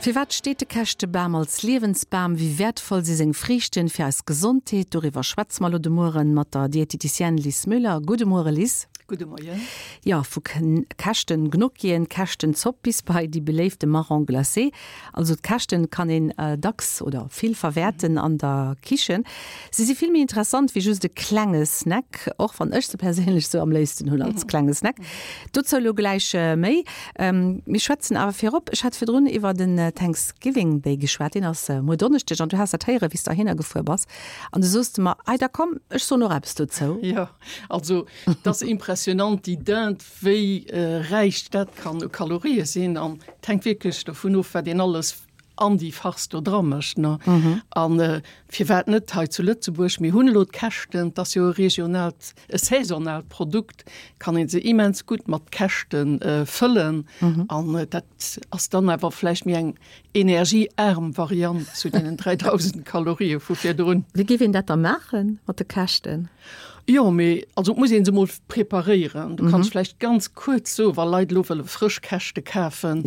Firwat steet de Käschtebam als Liewensbam? Wéi wäertvoll si seng Friichten fir eis Gesondheet? Doriwwer schwätze mer elo de Mueren mat der Dieteticienne Lis Müller. Gudde Muere Lis. Gudde Moien. Jo, vu Käschten-Gnocchien, Käschtenzopp bis bei déi beléifte Marron glacé. Also d'Käschten kann een dacks oder vill verwäerten an der Kichen. Si si vill méi interessant wéi just e klenge Snack, och wann ech se perséinlech sou am léifsten hunn als klenge Snack. Dozou elo gläich méi. Mir schwätzen awer virop, ech hat virdrun iwwer den Thanksgiving Day geschwat, deen ass muer Donneschdeg an du has dat héieren, wéi s de heihinner gefuer bass an du soos de mer, Ei da komm, ech soen och eppes dozou. Jo, also et ass impressionant, déi Dinde, wéi räich dat kann u Kalorië sinn an et hänkt wierklech dovun of, wat een alles an déi Farce do dra mécht, ne? An firwat net hei zu Lëtzebuerg? Mir hunn elo d'Käschten, 't ass jo e regionaalt, e saisonaalt Produkt, kann ee se immens gutt mat Käschte fëllen. An dat ass dann awer vläicht méi eng energieaarm Variant zu deenen 3.000 Kalorië vu virdrun. Wéi géif een dat da maache mat de Käschten? Jo, mee also et muss ee se emol preparéieren. Du kanns vläicht ganz kuerz soen, wa Leit elo wëlle frësch Käschte kafen,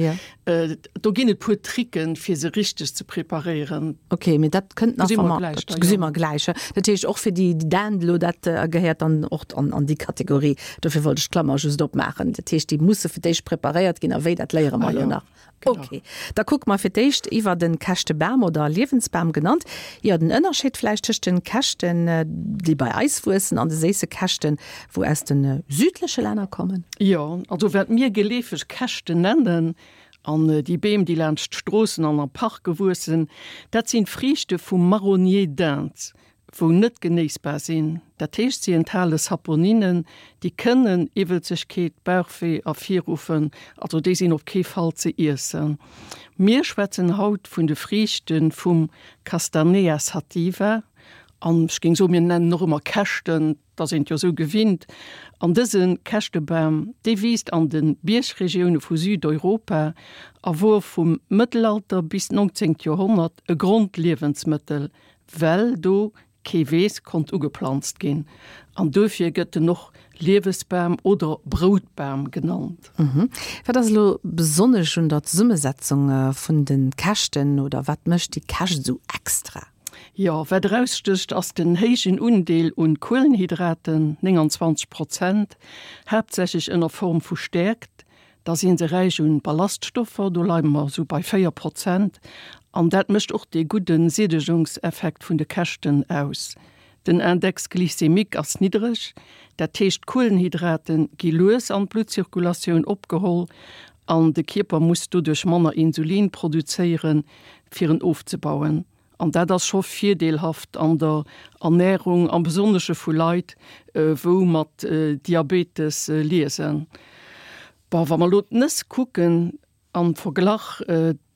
do ginn et puer Tricken, fir se richteg ze preparéieren. Ok, mee dat kënnt nach, wa mer, dat gesi mer gläich. Dat heescht och fir déi Dinde elo, dat gehéiert dann och an déi Kategorie. Dofir wollt ech d'Klammer just opmaachen. Dat heescht, déi musse fir d'éischt preparéiert ginn a wéi, dat léiere mer elo nach. Ok, da kucke mer fir d'éischt iwwer den Käschtebam oder Liewensbam genannt. Jo, den Ënnerscheed vläicht tëscht den Käschten, déi bei eis wuessen, an de séisse Käschten, wou aus de südleche Länner kommen. Jo, also wat mir geleefeg Käschten nennen, an déi Beem, déi laanscht d'Stroossen an a Parke wuessen, dat sinn d'Friichte vum Marronnier d'Inde. wou net genéissbar sinn, dat heescht si enthale Saponinen, déi kënnen Iwwelzegkeet, Bauchwee ervirruffen, also déi sinn op kee Fall ze iessen. Mir schwätzen haut vun de Friichte vum Castanea sativa an ech géing soen, mir nennen och ëmmer Käschten, 't ass een et jo esou gewinnt. An dëse Käschtebam, dee wiisst an de Biergregioune vu Südeuropa a wor vum Mëttelalter bis d'nongzéngt Joerhonnert e Grondliewensmëttel, well do kee Weess konnt ugeplanzt ginn an duerfir gëtt en och Liewesbam oder Broutbam genannt. Wat ass elo besonnesch un der Zesummesetzung vun de Käschten oder wat mécht déi Käscht esou extra? Jo, wat erausstécht ass den héijen Undeel un Kuelenhydraten, 29 Prozent, haaptsächlech ënner Form vu Stäerkt, Da si se räich un Ballaststoffer, do leie mer esou bei 4 Prozent. An dat mécht och dee gudde Siedegungseffekt vun de Käschten aus. Den Index glycémique ass niddreg, dat heescht d'Kuelenhydrate gi lues an d'Bluttzirkulatioun opgeholl an de Kierper muss doduerch manner Insulin produzéieren, fir en ofzebauen. An dat ass scho virdeelhaft an der Ernährung, am Besonnesche vu Leit, wou mat Diabetes liesen. Bon, wa mer elo d'Nëss kucken am Verglach,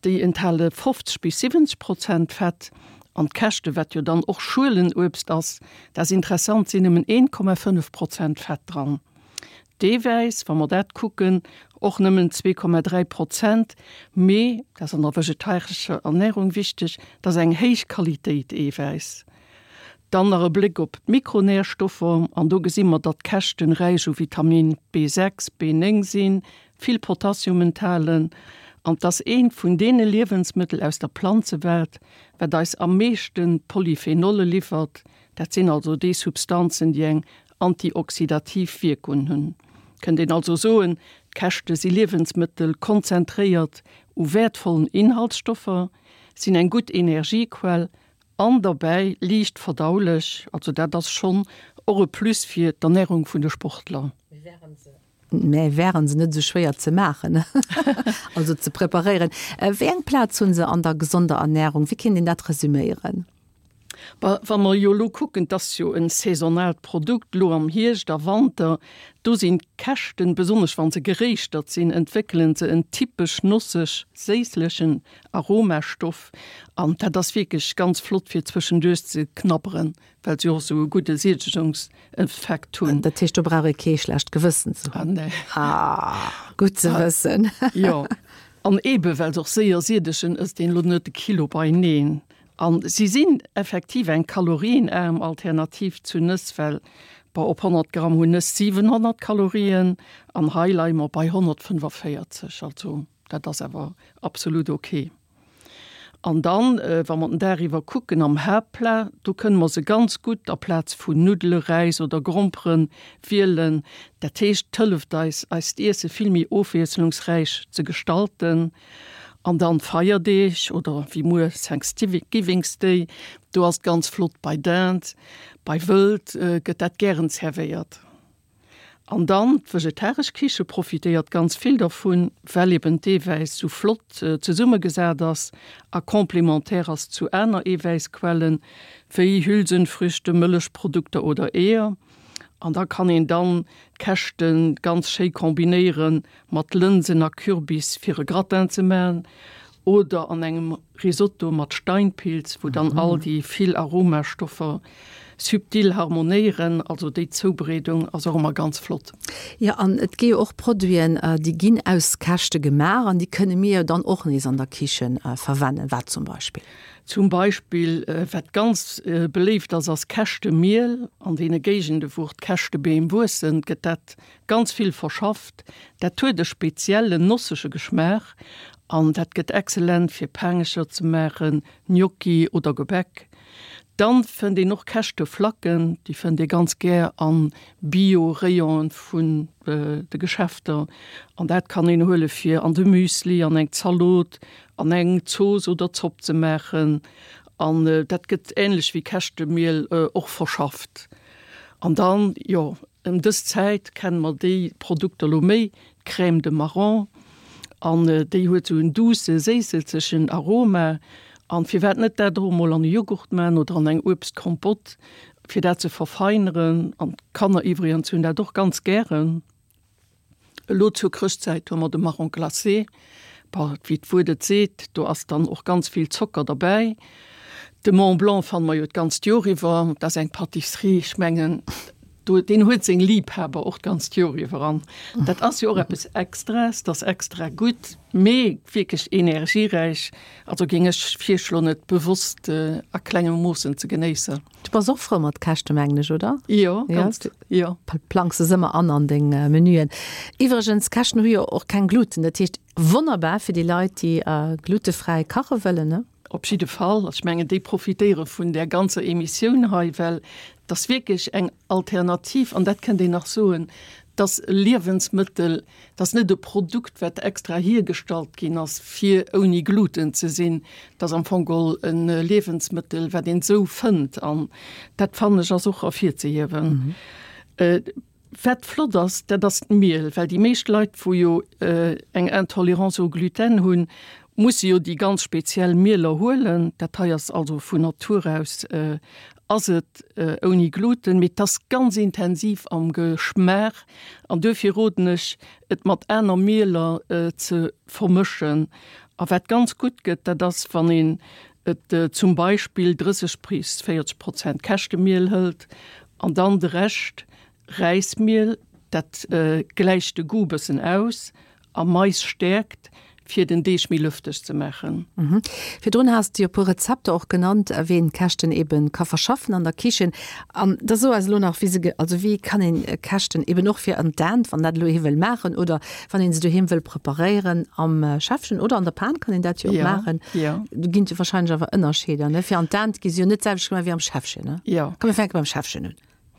déi enthale 50 bis 70 Prozent Fett an d'Käschte, wat jo dann och Schuelenuebst ass, dat ass interessant, sinn nëmmen 1,5 Prozent Fett dran. D'Eewäiss, wa mer dat kucken, och nëmmen 2,3 Prozent, mee, dat ass an der vegetarescher Ernährung wichteg, dat ass eng héich Qualitéit Eewäiss. Dann nach e Bléck op d'Mikronährstoffer, an do gesi mer, datt d'Käschten räich u Vitamin B6, B9 sinn, vill Potassium enthalen, an 't ass eent vun deene Liewensmëttel aus der Planzewelt, wat eis am meeschte Polyphenolle liwwert, dat sinn also déi Substanzen, déi eng antioxidativ Wierkung hunn. Kënnt een also soen, d'Käschte si Liewensmëttel konzentréiert u wäertvollen Inhaltsstoffer, sinn eng gutt Energiequell an derbäi liicht verdaulech. Also dat ass schonn och e Plus fir d'Ernärung vun de Sportler. Mä wären se net esou schwéier ze maachen, also ze preparéieren? Wéi eng Plaz hu se an der gesonder Ernärung? Wéi kéint een dat resüméieren? Wa mer jo elo kucken, 't ass jo e saisonaalt Produkt, elo am Hierscht a Wanter, do sinn d'Käschten, besonnesch wa se geréischtert sinn, entwéckele se en typesch nosseg-séisslechen Aromastoff an dat ass wierklech ganz flott fir zwëschenduerch ze knabberen. Well se och esou e gudde Siedegungseffekt hunn. Dat heescht, do brauch ee kee schlecht Gewëssen ze hunn. Ah, nee. Ah, gutt ze wëssen. Jo, an eebe well se och séier siedegen, ësst een elo net e Kilo beineen. An si sinn effektiv eng kalorienaarm Alternativ zu Nëss, well, bon, op 100 Gramm hunn Nëss 700 Kalorien an hei leie mer bei 145. Also dat ass awer absolut ok. An dann, wa mer den Dag iwwer kucken, am Haaptplat, do kënne mer se ganz gutt aplaz vun Nuddele, Räis oder Gromperen wielen. Dat heescht, et hëlleft eis, eist Iesse vill méi ofwiesslungsräich ze gestalten. An dann d'Feierdeeg oder wéi muer Thanksgivings Day, do ass et ganz flott bei Dinde, bei Wëld gëtt dat gären zerwéiert. An dann d'vegetaresch Kiche profitéiert ganz vill dervun, well eben d'Eewäiss sou flott zesummegesat ass a complémentaire ass zu aner Eewäissquellen, wéi Hülsenfrüchte, Mëllechprodukter oder Eeër. An da kann een dann d'Käschte ganz schéi kombinéiere mat Lënsen a Kürbis fir e Gratin ze maachen oder an engem Risotto mat Steinpilz, wou dann all déi vill Aromastoffer subtil harmonéieren. Also déi Zoubereedung ass och ëmmer ganz flott. Jo, an et gi jo och Produiten, déi ginn aus Käschte gemaach an déi kënne mir jo dann och nees an der Kichen verwennen. Wat zum Beispill? Zum Beispill, wat ganz beléift ass, ass Käschtemiel. An deene Géigende wou och d'Käschtebeem wuessen, gëtt dat Ganz vill verschafft. Dat huet e speziellen nossege Geschmaach an dat gëtt excellent fir Paangecher ze maachen, Gnocchi oder Gebäck. Dann fënnt een och Käschteflacken, déi fënnt ee ganz gär an Bio-Rayonen vun de Geschäfter an dat kann een huele fir an de Müsli, an eng Zalot, an eng Zooss oder Zopp ze maachen an dat gëtt ähnlech wéi Käschtemiel och verschafft. An dann, jo, Ëm dës Zäit kenne mer déi Produkter lo méi, d'Crème de marron, an déi huet sou en duusse, séisselzegen Aroma. An firwat net dat och emol an e Joghurt man oder an eng Uebstkompott, fir dat ze verfeineren. An d'Kanner iwwregens hunn dat och ganz gären. Elo zur Chrëschtzäit hu mer de Marron glacé. Bon, wéi d'Wuert et seet, do ass dann och ganz vill Zocker derbäi. De Mont Blanc fanne mer jo d'ganzt Joer iwwer. Dat ass eng Pâtisserie, ech mengen, do, deen huet seng Liebhaber och d'ganzt Joer iwwer. An dat ass jo och eppes Extraes, dat ass extra gutt, mee wierklech energieräich. Also géing ech virschloen, et bewosst a klengem Moossen ze genéissen. Du bass och frou mat Käschte mengen ech, oder? Jo, ganz, jo. Plangs se ëmmer an an deng Menüen. Iwwregens, Käschten hu jo och keng Gluten, dat heescht wonnerbar fir déi Leit, déi glutefräi kache wëllen, ne? Op jidde Fall. Ech mengen, déi profitéiere vun där ganzer Emissioun hei, well et ass wierklech eng Alternativ, an dat kënnt een nach soen, et ass e Liewensmëttel, Et ass net e Produkt, wat extra hiergestallt ginn ass, fir ouni Gluten ze sinn. Et ass am Fong geholl e Liewensmëttel, wat een esou fënnt. An dat, fannen ech, ass och ervirzehiewen. Wat flott ass, dat ass d'Miel, well déi meescht Leit, wou jo eng Intolérance au gluten hunn, musse jo déi ganz speziell Mieler huelen. Dat hei ass also vun Natur aus ass et ouni Gluten, mee et ass ganz intensiv am Geschmaach an duerfir roden ech et mat aner Mieler ze vermëschen. A wat ganz gutt gëtt, dat ass wann een et zum Beispill 30 bis 40 Prozent Käschtemiel hëlt an dann de Rescht Räismiel, dat gläicht de Goût bëssen aus a Mais stäerkt, fir den Deeg méi lëfteg ze maachen. Virdrun has de jo e puer Rezepter och genannt, wéi een d'Käschten eben ka verschaffen an der Kichen. An da so eis elo nach, wéi se, also wéi kann een Käschten eben och fir an d'Dänt, wann dat elo ee wëll maachen oder wann een se doheem wëll preparéieren am Schäffchen oder an der Pan kann een dat jo och maachen. Do ginn et jo wahrscheinlech awer Ënnerscheeder, ne? Fir an d'Dänt gi se jo net d'selwecht gemaach wéi am Schäffchen, ne? Komm mir fänke beim Schäffchen un.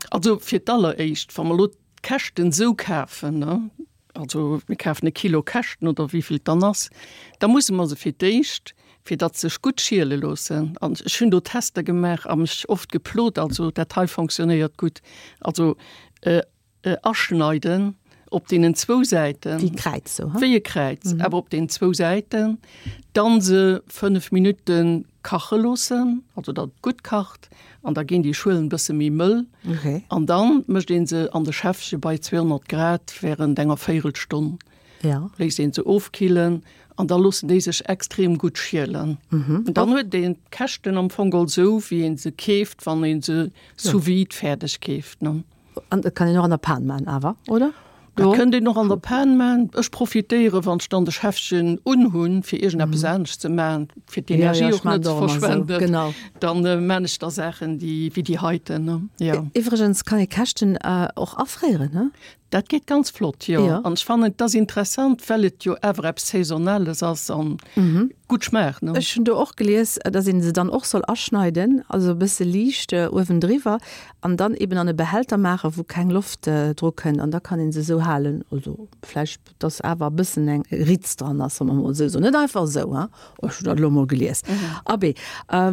Also fir d'alleréischt, wa mer elo d'Käschten esou kafen, ne, also mir kafen e Kilo Käschten oder wéi vill et dann ass, da musse mer se fir d'éischt, fir datt se sech gutt schiele loossen, an ech hunn do Tester gemaach a mech oft geplot, also dat hei fonctionnéiert gutt, also aschneiden op deenen zwou Säiten. Wéi e Kräiz sou, he? Wéi e Kräiz, awer op deenen zwou Säiten. Dann se 5 Minutte kache loossen, also datt et gutt kacht, an da ginn déi Schuelen e bësse méi mëll. Okay. An dann mécht een se an de Schäffche bei 200 Grad während enger Véirelstonn. Ja. Léisst een se ofkillen an da loossen déi sech extrem gutt schielen. Mhm. An dann huet een d'Käschten am Fong geholl sou, wéi een se keeft, wann een se sous vide fäerdeg keeft, ne? An dat kann een och an der Pan man awer, oder? Dat kënnt een och an der Pan man. Ech profitéiere wann ech dann de Schäffchen unhunn, fir iergendeppes anescht ze man, fir d'Energie och net ze verschwenden. Dann man ech da Saachen, déi wéi déi heiten, ne? Jo. Iwwregens kann ee Käschten och afréieren, ne? Dat geet ganz flott, jo. An ech fannen, et ass interessant, well et jo awer eppes Saisonales ass an gutt schmaacht, ne? Ech hunn do och gelies, dass een se dann och soll aschneiden, also e bësse liicht uewendriwwer an dann eben an e Behälter maachen, wou keng Loft dru kënnt an da kann een se esou halen. Also vläicht, dass awer e bëssen eng Ritz dran ass, solle mer mol esou soen. Net einfach esou, hein? Ech hunn dat elo mol gelies. Abee,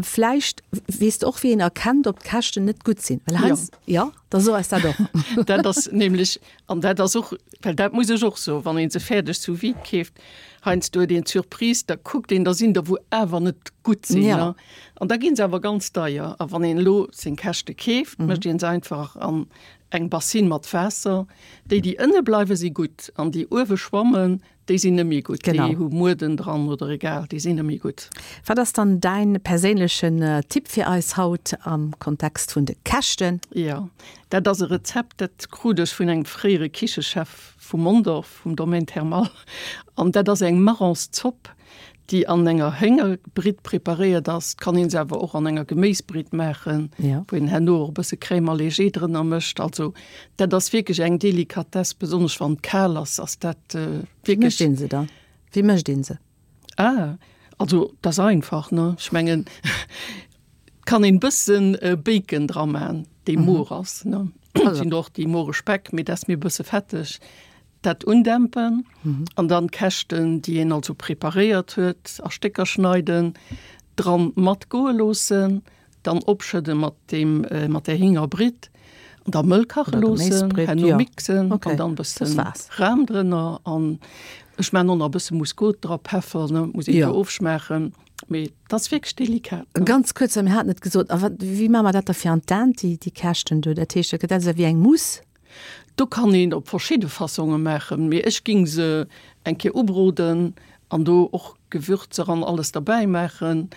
vläicht weess de och, wéi een erkennt, ob d'Käschten net gutt sinn, well heiansdo, jo? Da so eis dat och. Dat ass nämlech, an dat ass och, well dat muss ech och soen, wann ee se fäerdeg sous vide keeft, heiansdo huet een d'Surprise, da kuckt een, da sinn der wou awer net gutt sinn, ne? An da gi se awer ganz deier. A wann een elo seng Käschte keeft, mécht ee se einfach an eng Bassine mat Waasser. Déi, déi ënne bleiwen, si gutt, an déi uewe schwammen, Déi sinn net méi gutt, déi hu Mueden dran oder egal, déi sinn net méi gutt. Wat ass dann däin perséinlechen Tipp fir eis haut am Kontext vun de Käschten? Jo, dat ass e Rezept, dat krut ech vun engem fréiere Kichechef vu Mondorf, vum Domaine Thermal. An dat ass eng Marronszopp, déi an enger Héngerbritt preparéiert ass. Et kann een se awer och an enger Geméisbritt maachen, wou een herno och e bësse Crème allégée drënner mécht. Also Dat ass wierklech eng Delikatess, besonnesch wann et kal ass, ass dat wierklech. Wéi mécht een se dann? Wéi mécht een se? Ah, also dat ass einfach, ne? Ech mengen, et kann een bëssen Bacon dra man, dee moer ass, ne? Et sinn och déi moere Speck, mee dat ass mir e bësse fetteg. Dat undämpen an dann d'Käschten, déi een also preparéiert huet, a Stécker schneiden, dran matgoe loossen. Dann opschëdde mat deem mat der Hingerbritt an da mëll kache loossen, herno mixen an dann bëssen Ram drënner an ech maan och nach e bësse Muskot dra, Peffer, ne, muss een jo ofschmaachen, mee dat ass wierklech delikat. Ganz kuerz, well mir haten et gesot, a wat, wéi maache mer dat da fir an d'Dent, déi déi Käschten do? Dat heescht, dat gëtt also wéi eng Mousse? Do kann een op verschidde Fassonge maachen, mee ech ging se eng Kéier ubroden an do och Gewürzer an alles derbäi maachen,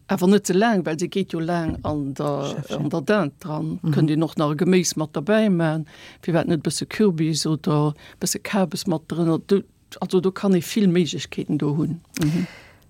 awer net ze laang, well se geet jo laang an der an der Dinde dran. Kënnt een och nach e Geméis mat derbäi man, firwat net e bësse Kürbis oder e bësse Kabes mat drënner. Also do kann ee vill Méiglechkeeten do hunn.